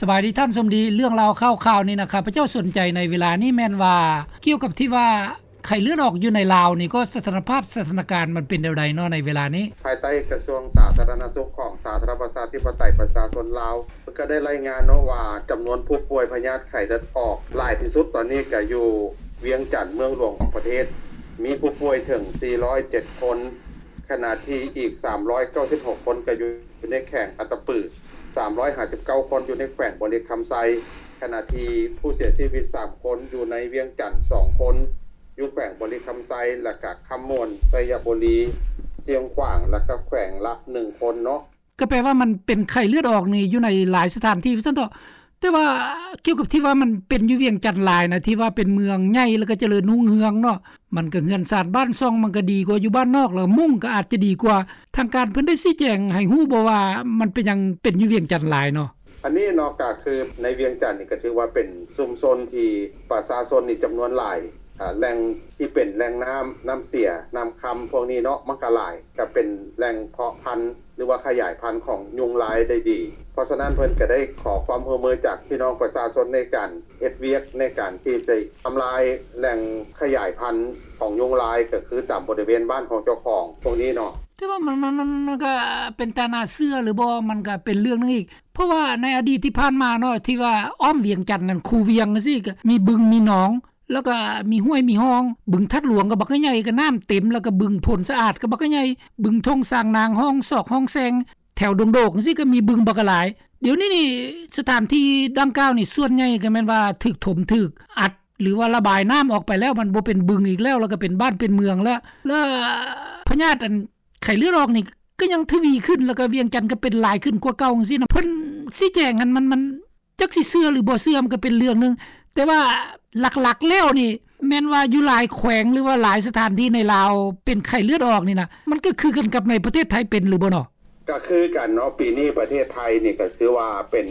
ສະບາຍດີທ່ານສົມດີ, ເລື່ອງລາວຂ່າວໆນີ້ນະ ຂ້າພະເຈົ້າສົນໃຈໃນເວລານີ້ແມ່ນວ່າ ກ່ຽວກັບທີ່ວ່າໄຂ້ເລືອດອອກຢູ່ໃນລາວນີ້ ກໍສະຖານະພາບ ສະຖານະການມັນເປັນແນວໃດເນາະໃນເວລານີ້? ພາຍໃຕ້ກະຊວງສາທາລະນະສຸກຂອງສາທາລະນະລັດປະຊາທິປະໄຕປະຊາຊົນລາວ ເພິ່ນກໍໄດ້ລາຍງານເນາະວ່າ ຈຳນວນຜູ້ປ່ວຍພະຍາດໄຂ້ເລືອດອອກຫຼາຍທີ່ສຸດຕອນນີ້ກໍຢູ່ວຽງຈັນ ເມືອງຫຼວງຂອງປະເທດ ມີຜູ້ປ່ວຍເຖິງສີ່ຮ້ອຍເຈັດຄົນ, ຂະນະທີ່ອີກສາມຮ້ອຍເກົ້າສິບຫົກຄົນກໍຢູ່ໃນແຂວງອັດຕະປື, ສາມຮ້ອຍຫ້າສິບເກົ້າຄົນຢູ່ໃນແຂວງບໍລິຄຳໄຊ, ຂະນະທີ່ຜູ້ເສຍຊີວິດສາມຄົນ ຢູ່ໃນວຽງຈັນສອງຄົນ, ຢູ່ແຂວງບໍລິຄຳໄຊ ແລະກະຄຳມ່ວນ, ໄຊຍະບູລີ, ຊຽງຂວາງ ແລະກະແຂວງລະໜຶ່ງຄົນເນາະ. ກໍແປວ່າມັນເປັນໄຂ້ເລືອດອອກນີ້ຢູ່ໃນຫຼາຍສະຖານທີ່ວ່າຊັ້ນເຖາະ. ແຕ່ວ່າກ່ຽວກັບທີ່ວ່າມັນເປັນຢູ່ວຽງຈັນຫຼາຍນະ ທີ່ວ່າເປັນເມືອງໃຫຍ່ ແລ້ວກໍຈະເລີນຮຸ່ງເຮືອງເນາະ, ມັນກໍເຮືອນຊານບ້ານຊ່ອງມັນກໍດີກວ່າຢູ່ບ້ານນອກ ແລ້ວມຸ້ງກໍອາດຈະດີກວ່າ. ທາງການເພິ່ນໄດ້ຊີ້ແຈງໃຫ້ຮູ້ບໍ່ວ່າ ມັນເປັນຫຍັງເປັນຢູ່ວຽງຈັນຫຼາຍເນາະ? ອັນນີ້ເນາະ ກໍຄືໃນວຽງຈັນນີ້ກໍຖືວ່າເປັນຊຸມຊົນທີ່ປະຊາຊົນນີ້ຈຳນວນຫຼາຍ, ອາ ແຫຼ່ງທີ່ເປັນແຫຼ່ງນ້ຳ, ນ້ຳເສຍ, ນ້ຳຄຳພວກນີ້ເນາະ ມັນກໍຫຼາຍ, ກໍເປັນແຫຼ່ງເພາະພັນ ຫຼືວ່າຂະຫຍາຍພັນຂອງຍຸງລາຍໄດ້ດີ. ເພາະສະນັ້ນເພິ່ນກໍໄດ້ຂໍຄວາມຮ່ວມມືຈາກພີ່ນ້ອງປະຊາຊົນໃນການເຮັດວຽກ ໃນການທີ່ຈະທຳລາຍແຫຼ່ງຂະຫຍາຍພັນຂອງຍຸງລາຍ ກໍຄືຕາມບໍລິເວນບ້ານຂອງເຈົ້າຂອງພວກນີ້ເນາະ. ແຕ່ວ່າມັນ, ມັນ, ມັນ, ມັນກໍເປັນຕາໜ້າເຊື່ອຫຼືບໍ່ ມັນກໍເປັນເລື່ອງໜຶ່ງອີກ, ເພາະວ່າໃນອະດີດທີ່ຜ່ານມາເນາະ ທີ່ວ່າອ້ອມວຽງຈັນນັ້ນ ຄູວຽງຈັ່ງຊີ້ ກໍມີບຶງມີໜອງ ແລ້ວກໍມີຫ້ວຍມີຮ່ອງ, ບຶງທາດຫຼວງກໍບັກໃຫຍ່ ກໍນ້ຳເຕັມ, ແລ້ວກໍບຶງໂພນສະອາດກໍບັກໃຫຍ່, ບຶງທົ່ງຊາງນາງ ຮ່ອງຊອກຮ່ອງແຊງ ແຖວດົງໂດກຈັ່ງຊີ້ ກໍມີບຶງບັກຫຼາຍ. ດຽວນີ້ນີ້ ສະຖານທີ່ດັ່ງກ່າວນີ້ ສ່ວນໃຫຍ່ກໍແມ່ນວ່າຖືກຖົມ ຖືກອັດ ຫຼືວ່າລະບາຍນ້ຳອອກໄປແລ້ວ, ມັນບໍ່ເປັນບຶງອີກແລ້ວ, ແລ້ວກໍເປັນບ້ານເປັນເມືອງແລ້ວ, ແລ້ວພະຍາດອັນ ໄຂ້ເລືອດອອກນີ້ກໍຍັງທະວີຂຶ້ນ ແລ້ວກໍວຽງຈັນກໍເປັນຫຼາຍຂຶ້ນກວ່າເກົ່າຈັ່ງຊີ້ນະ. ເພິ່ນຊີ້ແຈງຫັ້ນ ມັນ, ມັນຈັກຊິເຊື່ອຫຼືບໍ່ເຊື່ອ ມັນກໍເປັນເລື່ອງໜຶ່ງ, ແຕ່ວ່າຫຼັກໆແລ້ວນີ້ ແມ່ນວ່າຢູ່ຫຼາຍແຂວງ ຫຼືວ່າຫຼາຍສະຖານທີ່ໃນລາວເປັນໄຂ້ເລືອດອອກນີ້ນະ ມັນກໍຄືກັນກັບໃນປະເທດໄທເປັນຫຼືບໍ່ເນາະ? ກໍຄືກັນເນາະ, ປີນີ້ປະເທດໄທນີ້ກໍຄືວ່າເປັນ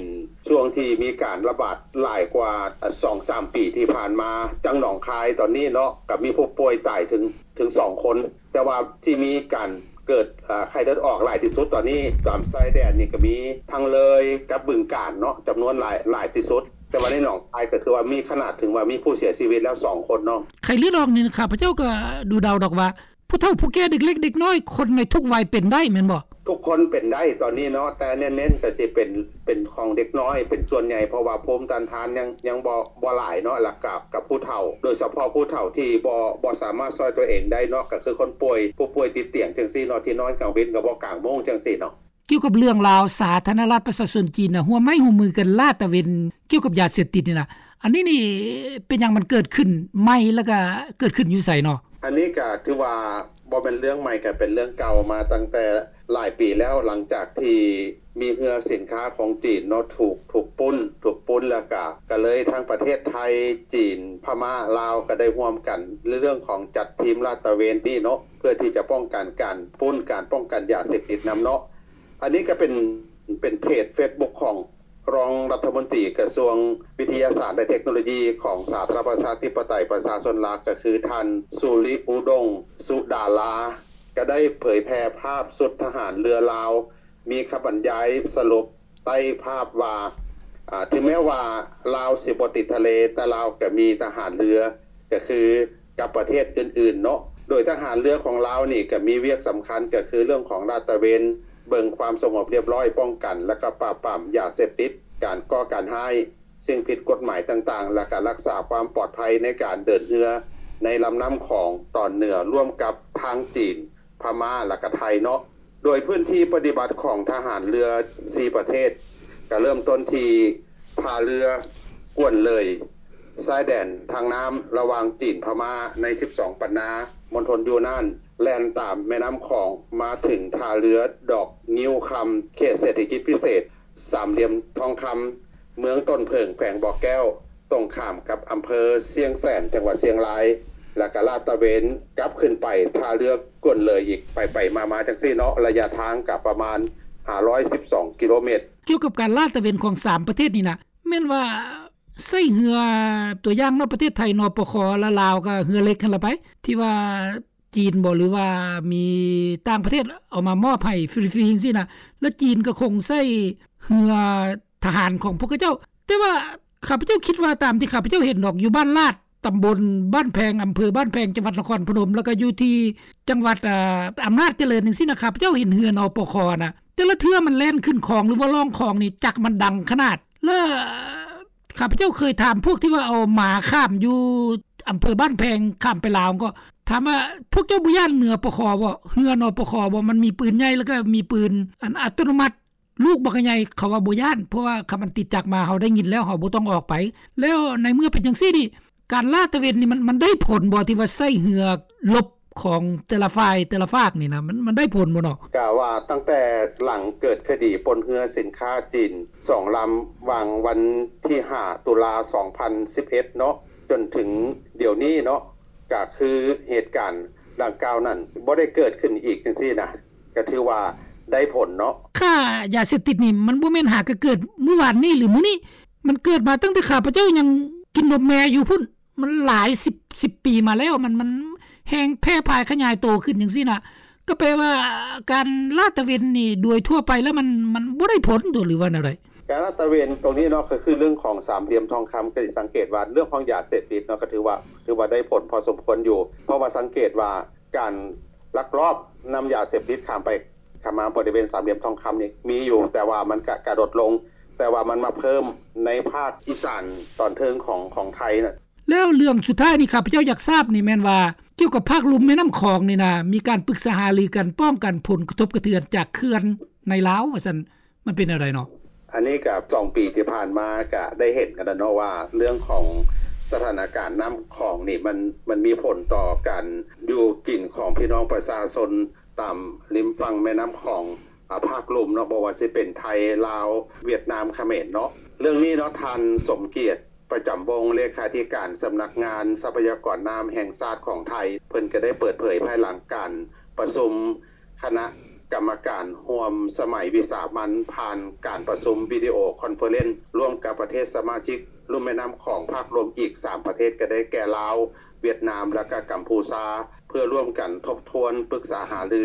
ຊ່ວງທີ່ມີການລະບາດຫຼາຍກວ່າສອງສາມປີທີ່ຜ່ານມາ. ຈັ່ງໜອງຄາຍຕອນນີ້ເນາະ ກໍມີຜູ້ປ່ວຍຕາຍເຖິງ, ເຖິງສອງຄົນ. ແຕ່ວ່າທີ່ມີການເກີດ, ເອີ, ໄຂ້ເລືອດອອກຫຼາຍທີ່ສຸດຕອນນີ້ ຕາມຊາຍແດນນີ້ກໍມີທັງເລີຍກັບບຶງການເນາະ, ຈຳນວນຫຼາຍ, ຫຼາຍທີ່ສຸດ. ແຕ່ວ່າໃນໜອງຄາຍກໍຖືວ່າມີຂະໜາດເຖິງວ່າມີຜູ້ເສຍຊີວິດແລ້ວສອງຄົນເນາະ. ໄຂ້ເລືອດອອກນີ້ ຂ້າພະເຈົ້າກໍດູເດົາດອກວ່າ ຜູ້ເຖົ້າຜູ້ແກ່ ເດັກເລັກເດັກນ້ອຍ ຄົນໃນທຸກໄວເປັນໄດ້ແມ່ນບໍ່? ທຸກຄົນເປັນໄດ້ຕອນນີ້ເນາະ, ແຕ່ເນັ້ນໆກໍຊິເປັນ, ເປັນຂອງເດັກນ້ອຍເປັນສ່ວນໃຫຍ່ ເພາະວ່າພູມຕ້ານທານຍັງ, ຍັງບໍ່, ບໍ່ຫຼາຍເນາະ, ແລ້ວກໍ, ກັບຜູ້ເຖົ້າ, ໂດຍສະເພາະຜູ້ເຖົ້າທີ່ບໍ່, ບໍ່ສາມາດຊ່ອຍຕົວເອງໄດ້ເນາະ, ກໍຄືຄົນປ່ວຍ, ຜູ້ປ່ວຍຕິດຕຽງຈັ່ງຊີ້ເນາະ, ທີ່ນອນກາງເວັນກໍບໍ່ກາງໂມງຈັ່ງຊີ້ເນາະ. ກ່ຽວກັບເລື່ອງລາວ ສາທາລະນະລັດປະຊາຊົນຈີນນະ ຮ່ວມໄມ້ຮ່ວມມືກັນລາດຕະເວນກ່ຽວກັບຢາເສບຕິດນີ້ນະ, ອັນນີ້ນີ້ເປັນຫຍັງມັນເກີດຂຶ້ນໃໝ່ ແລ້ວກະເກີດຂຶ້ນຢູ່ໃສເນາະ? ອັນນີ້ກະຖືວ່າບໍ່ແມ່ນເລື່ອງໃໝ່, ກະເປັນເລື່ອງເກົ່າມາຕັ້ງແຕ່ຫຼາຍປີແລ້ວ, ຫຼັງຈາກທີ່ມີເຮືອສິນຄ້າຂອງຈີນເນາະ ຖືກ, ຖືກປຸ້ນ, ຖືກປຸ້ນ ແລ້ວກະ, ກະເລີຍທັງປະເທດໄທ, ຈີນ, ພະມ້າ, ລາວ ກະໄດ້ຮ່ວມກັນໃນເລື່ອງຂອງຈັດທີມລາດຕະເວນນີ້ເນາະ, ເພື່ອທີ່ຈະປ້ອງກັນການປຸ້ນ, ການປ້ອງກັນຢາເສບຕິດນຳເນາະ. ອັນນີ້ກໍເປັນ, ເປັນເພຈເຟສບຸກຂອງ ຮອງລັດຖະມົນຕີກະຊວງວິທະຍາສາດ ແລະ ເທັກໂນໂລຢີຂອງສາທາລະນະລັດປະຊາທິປະໄຕປະຊາຊົນລາວ ກໍຄືທ່ານ ສຸລິອຸດົງ ສຸດາລາ ກໍໄດ້ເຜີຍແຜ່ພາບຊຸດທະຫານເຮືອລາວ ມີຄຳບັນຍາຍສະຫຼຸບໃຕ້ພາບວ່າ, ອາ, ເຖິງແມ້ວ່າລາວຊິບໍ່ຕິດທະເລ, ແຕ່ລາວກໍມີທະຫານເຮືອ ກໍຄືກັບປະເທດອື່ນໆເນາະ, ໂດຍທະຫານເຮືອຂອງລາວນີ້ກໍມີວຽກສຳຄັນ ກໍຄືເລື່ອງຂອງລາດຕະເວນ, ເບິ່ງຄວາມສະຫງົບຮຽບຮ້ອຍ, ປ້ອງກັນ ແລະ ກໍປາບປາມຢາເສບຕິດ, ການກໍ່ການຮ້າຍ, ສິ່ງຜິດກົດໝາຍຕ່າງໆ ແລະ ກໍຮັກສາຄວາມປອດໄພໃນການເດີນເຮືອໃນລຳນ້ຳຂອງຕອນເໜືອ ຮ່ວມກັບທາງຈີນ, ພະມ້າ ແລະ ກໍໄທເນາະ. ໂດຍພື້ນທີ່ປະຕິບັດຂອງທະຫານເຮືອສີ່ປະເທດ ກະເລີ່ມຕົ້ນທີ່ທ່າເຮືອກວນເລີຍ ຊາຍແດນທາງນ້ຳລະຫວ່າງຈີນພະມ້າໃນສິບສອງປັນນາ ມົນທົນຢູນານ, ແລ່ນຕາມແມ່ນ້ຳຂອງມາເຖິງທ່າເຮືອດອກງິ້ວຄຳ ເຂດເສດຖະກິດພິເສດສາມຫຼ່ຽມທອງຄຳ ເມືອງຕົ້ນເຜິ້ງ ແຂວງບໍ່ແກ້ວ ຕົງຂ້າມກັບອຳເພີຊຽງແສນ ຈັງຫວັດຊຽງລາຍ ແລ້ວກະລາດຕະເວນກັບຂຶ້ນໄປທ່າເຮືອກວນເລີຍອີກ ໄປໆມາໆຈັ່ງຊີ້ເນາະ, ໄລຍະທາງກະປະມານຫ້າຮ້ອຍສິບສອງກິໂລແມັດ. ກ່ຽວກັບການລາດຕະເວນຂອງສາມປະເທດນີ້ນະ ແມ່ນວ່າໃຊ້ເຮືອ, ຕົວຢ່າງເນາະ ປະເທດໄທ ນປຄ ແລະ ລາວກະເຮືອເຫຼັກຫັ້ນລະໄປ ທີ່ວ່າຈີນບໍ ຫຼືວ່າມີຕ່າງປະເທດເອົາມາມອບໃຫ້ຟຣີໆຈັ່ງຊີ້ນະ, ແລ້ວຈີນກະຄົງໃຊ້ເຮືອ ທະຫານຂອງພວກເຂົາເຈົ້າ. ແຕ່ວ່າຂ້າພະເຈົ້າຄິດວ່າ ຕາມທີ່ຂ້າພະເຈົ້າເຫັນດອກ ຢູ່ບ້ານລາດ ຕຳບົນບ້ານແພງ ອຳເພີບ້ານແພງ ຈັງຫວັດນະຄອນພະນົມ ແລ້ວກໍຢູ່ທີ່ຈັງຫວັດ ອາ ອຳນາດຈະເລີນຈັ່ງຊີ້ນະ ຂ້າພະເຈົ້າເຫັນເຮືອ ນປຄ ນະ ແຕ່ລະເທື່ອມັນແລ່ນຂຶ້ນຄອງ ຫຼືວ່າລ່ອງຄອງນີ້ ຈັກມັນດັງຂະໜາດ. ແລ້ວຂ້າພະເຈົ້າເຄີຍຖາມພວກທີ່ວ່າເອົາໝາຂ້າມຢູ່ອຳເພີບ້ານແພງ ຂ້າມໄປລາວ ກໍຖາມວ່າ ພວກເຈົ້າບໍ່ຢ້ານເຮືອ ນປຄ ບໍ່? ເຮືອ ນປຄ ບໍ່? ມັນມີປືນໃຫຍ່ ແລ້ວກໍມີປືນອັນອັດຕະໂນມັດ ລູກບັກໃຫຍ່. ເຂົາວ່າບໍ່ຢ້ານ ເພາະວ່າຄັນມັນຕິດຈັກມາ ເຮົາໄດ້ຍິນແລ້ວ ເຮົາບໍ່ຕ້ອງອອກໄປ. ແລ້ວໃນເມື່ອເປັນຈັ່ງຊີ້ນີ້ ການລາດຕະເວນນີ້ ມັນ ມັນໄດ້ຜົນບໍ່ ທີ່ວ່າໃຊ້ເຮືອລົບຂອງແຕ່ລະຝ່າຍແຕ່ລະຟາກນີ້ນະ ມັນ ມັນໄດ້ຜົນບໍ່ເນາະ? ກະວ່າຕັ້ງແຕ່ຫຼັງເກີດຄະດີປົນເຮືອສິນຄ້າຈີນສອງລຳ ຫວ່າງວັນທີຫ້າ ຕຸລາ ສອງພັນສິບເອັດເນາະ ຈົນເຖິງດຽວນີ້ເນາະ ກະຄືເຫດການດັ່ງກ່າວນັ້ນບໍ່ໄດ້ເກີດຂຶ້ນອີກຈັ່ງຊີ້ນະ ກະຖືວ່າໄດ້ຜົນເນາະ. ຄ່າຢາເສບຕິດນີ້ ມັນບໍ່ແມ່ນຫາກະເກີດມື້ວານນີ້ ຫຼືມື້ນີ້ ມັນເກີດມາຕັ້ງແຕ່ຂ້າພະເຈົ້າຍັງກິນນົມແມ່ຢູ່ພຸ້ນ ມັນຫຼາຍສິບ ສິບປີມາແລ້ວ ມັນ ມັນແຮ່ງແຜ່ພາຍຂະຫຍາຍໂຕຂຶ້ນຈັ່ງຊີ້ນະ. ກໍແປວ່າການລາດຕະເວນນີ້ ໂດຍທົ່ວໄປແລ້ວມັນ ມັນບໍ່ໄດ້ຜົນຕົວະ ຫຼືວ່າແນວໃດ? ການລາດຕະເວນຕົງນີ້ເນາະ ກໍຄືເລື່ອງຂອງສາມຫຼ່ຽມທອງຄຳ ກໍຊິສັງເກດວ່າເລື່ອງຂອງຢາເສບຕິດເນາະ ກໍຖືວ່າ ຖືວ່າໄດ້ຜົນພໍສົມຄວນຢູ່ ເພາະວ່າສັງເກດວ່າການລັກລອບນຳຢາເສບຕິດຂ້າມໄປຂ້າມມາບໍລິເວນສາມຫຼ່ຽມທອງຄຳນີ້ມີຢູ່ ແຕ່ວ່າມັນກະ ກະລົດລົງ ແຕ່ວ່າມັນມາເພີ່ມໃນພາກອີສານຕອນເທິງຂອງ ຂອງໄທນະ. ແລ້ວເລື່ອງສຸດທ້າຍນີ້ ຂ້າພະເຈົ້າຢາກຊາບນີ້ແມ່ນວ່າ ກ່ຽວກັບພາກລຸ່ມແມ່ນ້ຳຂອງນີ້ນະ ມີການປຶກສາຫາລືກັນ ປ້ອງກັນຜົນກະທົບກະເທືອນຈາກເຂື່ອນໃນລາວວ່າຊັ້ນ ມັນເປັນແນວໃດເນາະ? ອັນນີ້ກະສອງປີທີ່ຜ່ານມາກະໄດ້ເຫັນກັນແລ້ວເນາະວ່າ ເລື່ອງຂອງສະຖານະການນ້ຳຂອງນີ້ ມັນ ມັນມີຜົນຕໍ່ການຢູ່ກິນຂອງພີ່ນ້ອງປະຊາຊົນຕາມລິມຝັ່ງແມ່ນ້ຳຂອງ ອາ ພາກລຸ່ມເນາະ ບໍ່ວ່າຊິເປັນໄທ ລາວ ຫວຽດນາມ ຂະເໝນເນາະ. ເລື່ອງນີ້ເນາະ ທ່ານ ສົມກຽດ ປະຈຳວົງ ເລຂາທິການສຳນັກງານຊັບພະຍາກອນນ້ຳແຫ່ງຊາດຂອງໄທ ເພິ່ນກະໄດ້ເປີດເຜີຍພາຍຫຼັງການປະຊຸມ ຄະນະກຳມະການຮ່ວມສະໄໝວິສາມັນ ຜ່ານການປະຊຸມວິດີໂອຄອນເຟີເຣັນ ຮ່ວມກັບປະເທດສະມາຊິກລຸ່ມແມ່ນ້ຳຂອງພາກລຸ່ມອີກສາມປະເທດ ກໍໄດ້ແກ່ລາວ, ຫວຽດນາມ ແລະ ກະກຳພູຊາ ເພື່ອຮ່ວມກັນທົບທວນ, ປຶກສາຫາລື,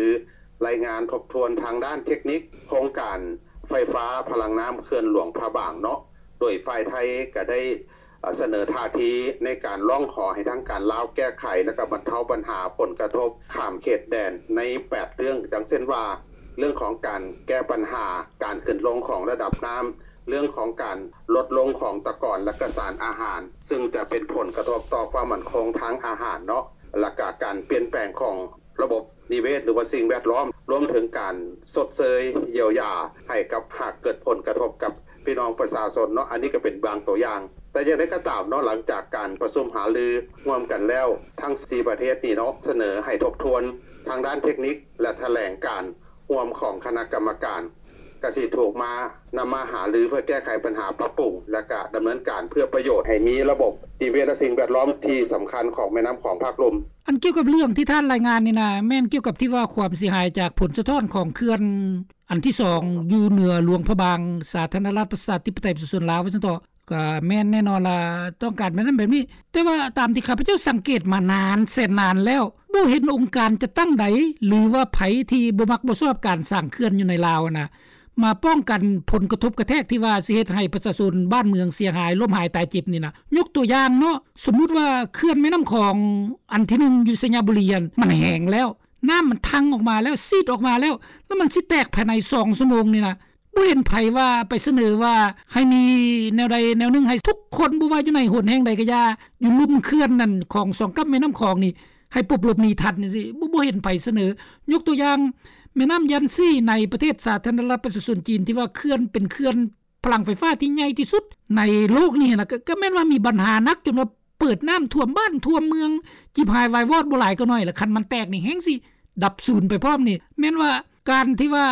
ລາຍງານທົບທວນທາງດ້ານເທັກນິກໂຄງການໄຟຟ້າພະລັງນ້ຳເຂື່ອນຫຼວງພະບາງເນາະ. ໂດຍຝ່າຍໄທກໍໄດ້ ສະເໜີທ່າທີໃນການຮ້ອງຂໍໃຫ້ທາງການລາວແກ້ໄຂ ແລະ ກໍບັນເທົາບັນຫາຜົນກະທົບຂ້າມເຂດແດນໃນແປດເລື່ອງ ດັ່ງເຊັ່ນວ່າ ເລື່ອງຂອງການແກ້ບັນຫາການຂຶ້ນລົງຂອງລະດັບນ້ຳ, ເລື່ອງຂອງການລົດລົງຂອງຕະກອນ ແລະ ກະສານອາຫານ ຊຶ່ງຈະເປັນຜົນກະທົບຕໍ່ຄວາມໝັ້ນຄົງທາງອາຫານເນາະ ແລະ ກະການປ່ຽນແປງຂອງ ລະບົບນິເວດ ຫຼືວ່າສິ່ງແວດລ້ອມ ລວມເຖິງການຊົດເຊີຍຢຽວຢາໃຫ້ກັບ ຫາກເກີດຜົນກະທົບກັບພີ່ນ້ອງປະຊາຊົນເນາະ. ອັນນີ້ກໍເປັນບາງຕົວຢ່າງ ແຕ່ຢ່າງໃດກໍຕາມເນາະ ຫຼັງຈາກການປະຊຸມຫາລືຮ່ວມກັນແລ້ວ ທັງສີ່ປະເທດນີ້ເນາະ ສະເໜີໃຫ້ທົບທວນທາງດ້ານເທັກນິກ ແລະ ຖະແຫຼງການຮ່ວມຂອງຄະນະກຳມະການ ກະຊິຖືກມາ ນຳມາຫາລືເພື່ອແກ້ໄຂບັນຫາ, ປັບປຸງ ແລະ ກະດຳເນີນການເພື່ອປະໂຫຍດໃຫ້ມີລະບົບນິເວດ ແລະ ສິ່ງແວດລ້ອມທີ່ສຳຄັນຂອງແມ່ນ້ຳຂອງພາກລຸ່ມ. ອັນກ່ຽວກັບເລື່ອງທີ່ທ່ານລາຍງານນີ້ນະ ແມ່ນກ່ຽວກັບທີ່ວ່າຄວາມເສຍຫາຍຈາກຜົນສະທ້ອນຂອງເຂື່ອນອັນທີສອງ ຢູ່ເໜືອຫຼວງພະບາງ ສາທາລະນະລັດປະຊາທິປະໄຕປະຊາຊົນລາວ ວ່າຊັ້ນເຖາະ. ກໍແມ່ນແນ່ນອນລະ ຕ້ອງການແບບນັ້ນແບບນີ້ ແຕ່ວ່າຕາມທີ່ຂ້າພະເຈົ້າສັງເກດມານານແສນນານແລ້ວ ບໍ່ເຫັນອົງການຈັດຕັ້ງໃດ ຫຼືວ່າໃຜທີ່ບໍ່ມັກບໍ່ຊອບການສ້າງເຂື່ອນຢູ່ໃນລາວຫັ້ນນະ ມາປ້ອງກັນຜົນກະທົບກະແທກທີ່ວ່າຊິເຮັດໃຫ້ປະຊາຊົນບ້ານເມືອງເສຍຫາຍ ລົ້ມຫາຍຕາຍເຈັບນີ້ນະ. ຍົກຕົວຢ່າງເນາະ ສົມມຸດວ່າເຂື່ອນແມ່ນ້ຳຂອງອັນທີໜຶ່ງຢູ່ໄຊຍະບູລີຫັ້ນ ມັນແຫ້ງແລ້ວ ນ້ຳມັນທັ່ງອອກມາແລ້ວ ຊີດອອກມາແລ້ວ ແລ້ວມັນຊິແຕກພາຍໃນສອງຊົ່ວໂມງນີ້ນະ. ບໍ່ເຫັນໃຜວ່າໄປສະເໜີວ່າໃຫ້ມີແນວໃດແນວໜຶ່ງ ໃຫ້ທຸກຄົນ ບໍ່ວ່າຢູ່ໃນຫົນແຫ່ງໃດກໍຢ່າ ຢູ່ລຸ່ມເຂື່ອນນັ້ນຂອງສອງກັບແມ່ນ້ຳຂອງນີ້ ໃຫ້ປົບຫຼົບໜີທັນຈັ່ງຊີ້ ບໍ່ ບໍ່ເຫັນໃຜສະເໜີ. ຍົກຕົວຢ່າງ ແມ່ນ້ຳຢັນຊີໃນປະເທດສາທາລະນະລັດປະຊາຊົນຈີນ ທີ່ວ່າເຂື່ອນເປັນເຂື່ອນ ພະລັງໄຟຟ້າທີ່ໃຫຍ່ທີ່ສຸດໃນໂລກນີ້ນະ ກໍ ກໍແມ່ນວ່າມີບັນຫາໜັກ ຈົນວ່າເປີດນ້ຳຖ້ວມບ້ານຖ້ວມເມືອງ ຈີບຫາຍວາຍວອດບໍ່ຫຼາຍກໍໜ້ອຍລະ. ຄັນມັນແຕກນີ້ແຮ່ງຊິດັບສູນໄປພ້ອມນີ້. ແມ່ນວ່າການທີ່ວ່າ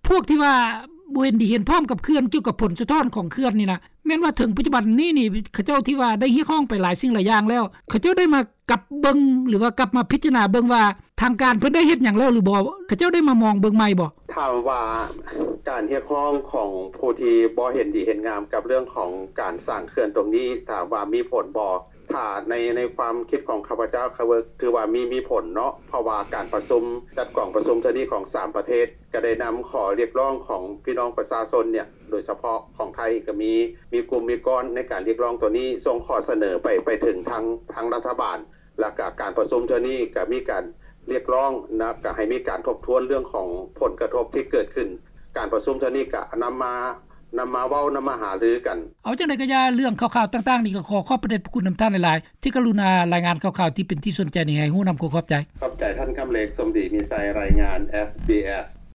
ພວກທີ່ວ່າບໍ່ເຫັນດີເຫັນພ້ອມກັບເຂື່ອນ ກ່ຽວກັບຜົນສະທ້ອນຂອງເຂື່ອນນີ້ນະ ແມ່ນວ່າເຖິງປັດຈຸບັນນີ້ນີ້ ເຂົາເຈົ້າທີ່ວ່າໄດ້ຮຽກຮ້ອງໄປຫຼາຍສິ່ງຫຼາຍຢ່າງແລ້ວ ເຂົາເຈົ້າໄດ້ມາ ກັບເບິ່ງ ຫຼືວ່າກັບມາພິຈາລະນາເບິ່ງວ່າ ທາງການເພິ່ນໄດ້ເຮັດຫຍັງແລ້ວ ຫຼືບໍ່? ເຂົາເຈົ້າໄດ້ມາມອງເບິ່ງໃໝ່ບໍ່? ຖາມວ່າການຮຽກຮ້ອງຂອງຜູ້ທີ່ບໍ່ເຫັນດີເຫັນງາມກັບເລື່ອງຂອງການສ້າງເຂື່ອນຕົງນີ້ ຖາມວ່າມີຜົນບໍ່? ຖ້າໃນ ໃນຄວາມຄິດຂອງຂ້າພະເຈົ້າ ຖືວ່າມີ ມີຜົນເນາະ ເພາະວ່າການປະຊຸມ ຈັດກອງປະຊຸມເທື່ອນີ້ຂອງສາມປະເທດ ກໍໄດ້ນຳຂໍ້ຮຽກຮ້ອງຂອງພີ່ນ້ອງປະຊາຊົນເນຍ ໂດຍສະເພາະຂອງໄທກໍມີ ມີກຸ່ມມີກ້ອນໃນການຮຽກຮ້ອງໂຕນີ້ ສົ່ງຂໍ້ສະເໜີໄປ ໄປເຖິງທາງ ທາງລັດຖະບານ ແລ້ວກໍການປະຊຸມເທື່ອນີ້ກໍມີການຮຽກຮ້ອງ ແລ້ວກໍໃຫ້ມີການທົບທວນເລື່ອງຂອງຜົນກະທົບທີ່ເກີດຂຶ້ນ. ການປະຊຸມເທື່ອນີ້ກໍນຳມາ ນຳມາເວົ້າ ນຳມາຫາລືກັນ. ເອົາຈັ່ງໃດກໍຢ່າ ເລື່ອງຂ່າວໆຕ່າງໆນີ້ ກໍຂໍຂອບພະເດດພະຄຸນນຳທ່ານຫຼາຍໆ ທີ່ກະລຸນາລາຍງານຂ່າວໆທີ່ເປັນທີ່ສົນໃຈນີ້ໃຫ້ຮູ້ນຳ. ຂໍຂອບໃຈ. ຂອບໃຈທ່ານຄຳເລັກ ສົມດີມີໄຊ ລາຍງານ ເອັຟບີເອັຟ.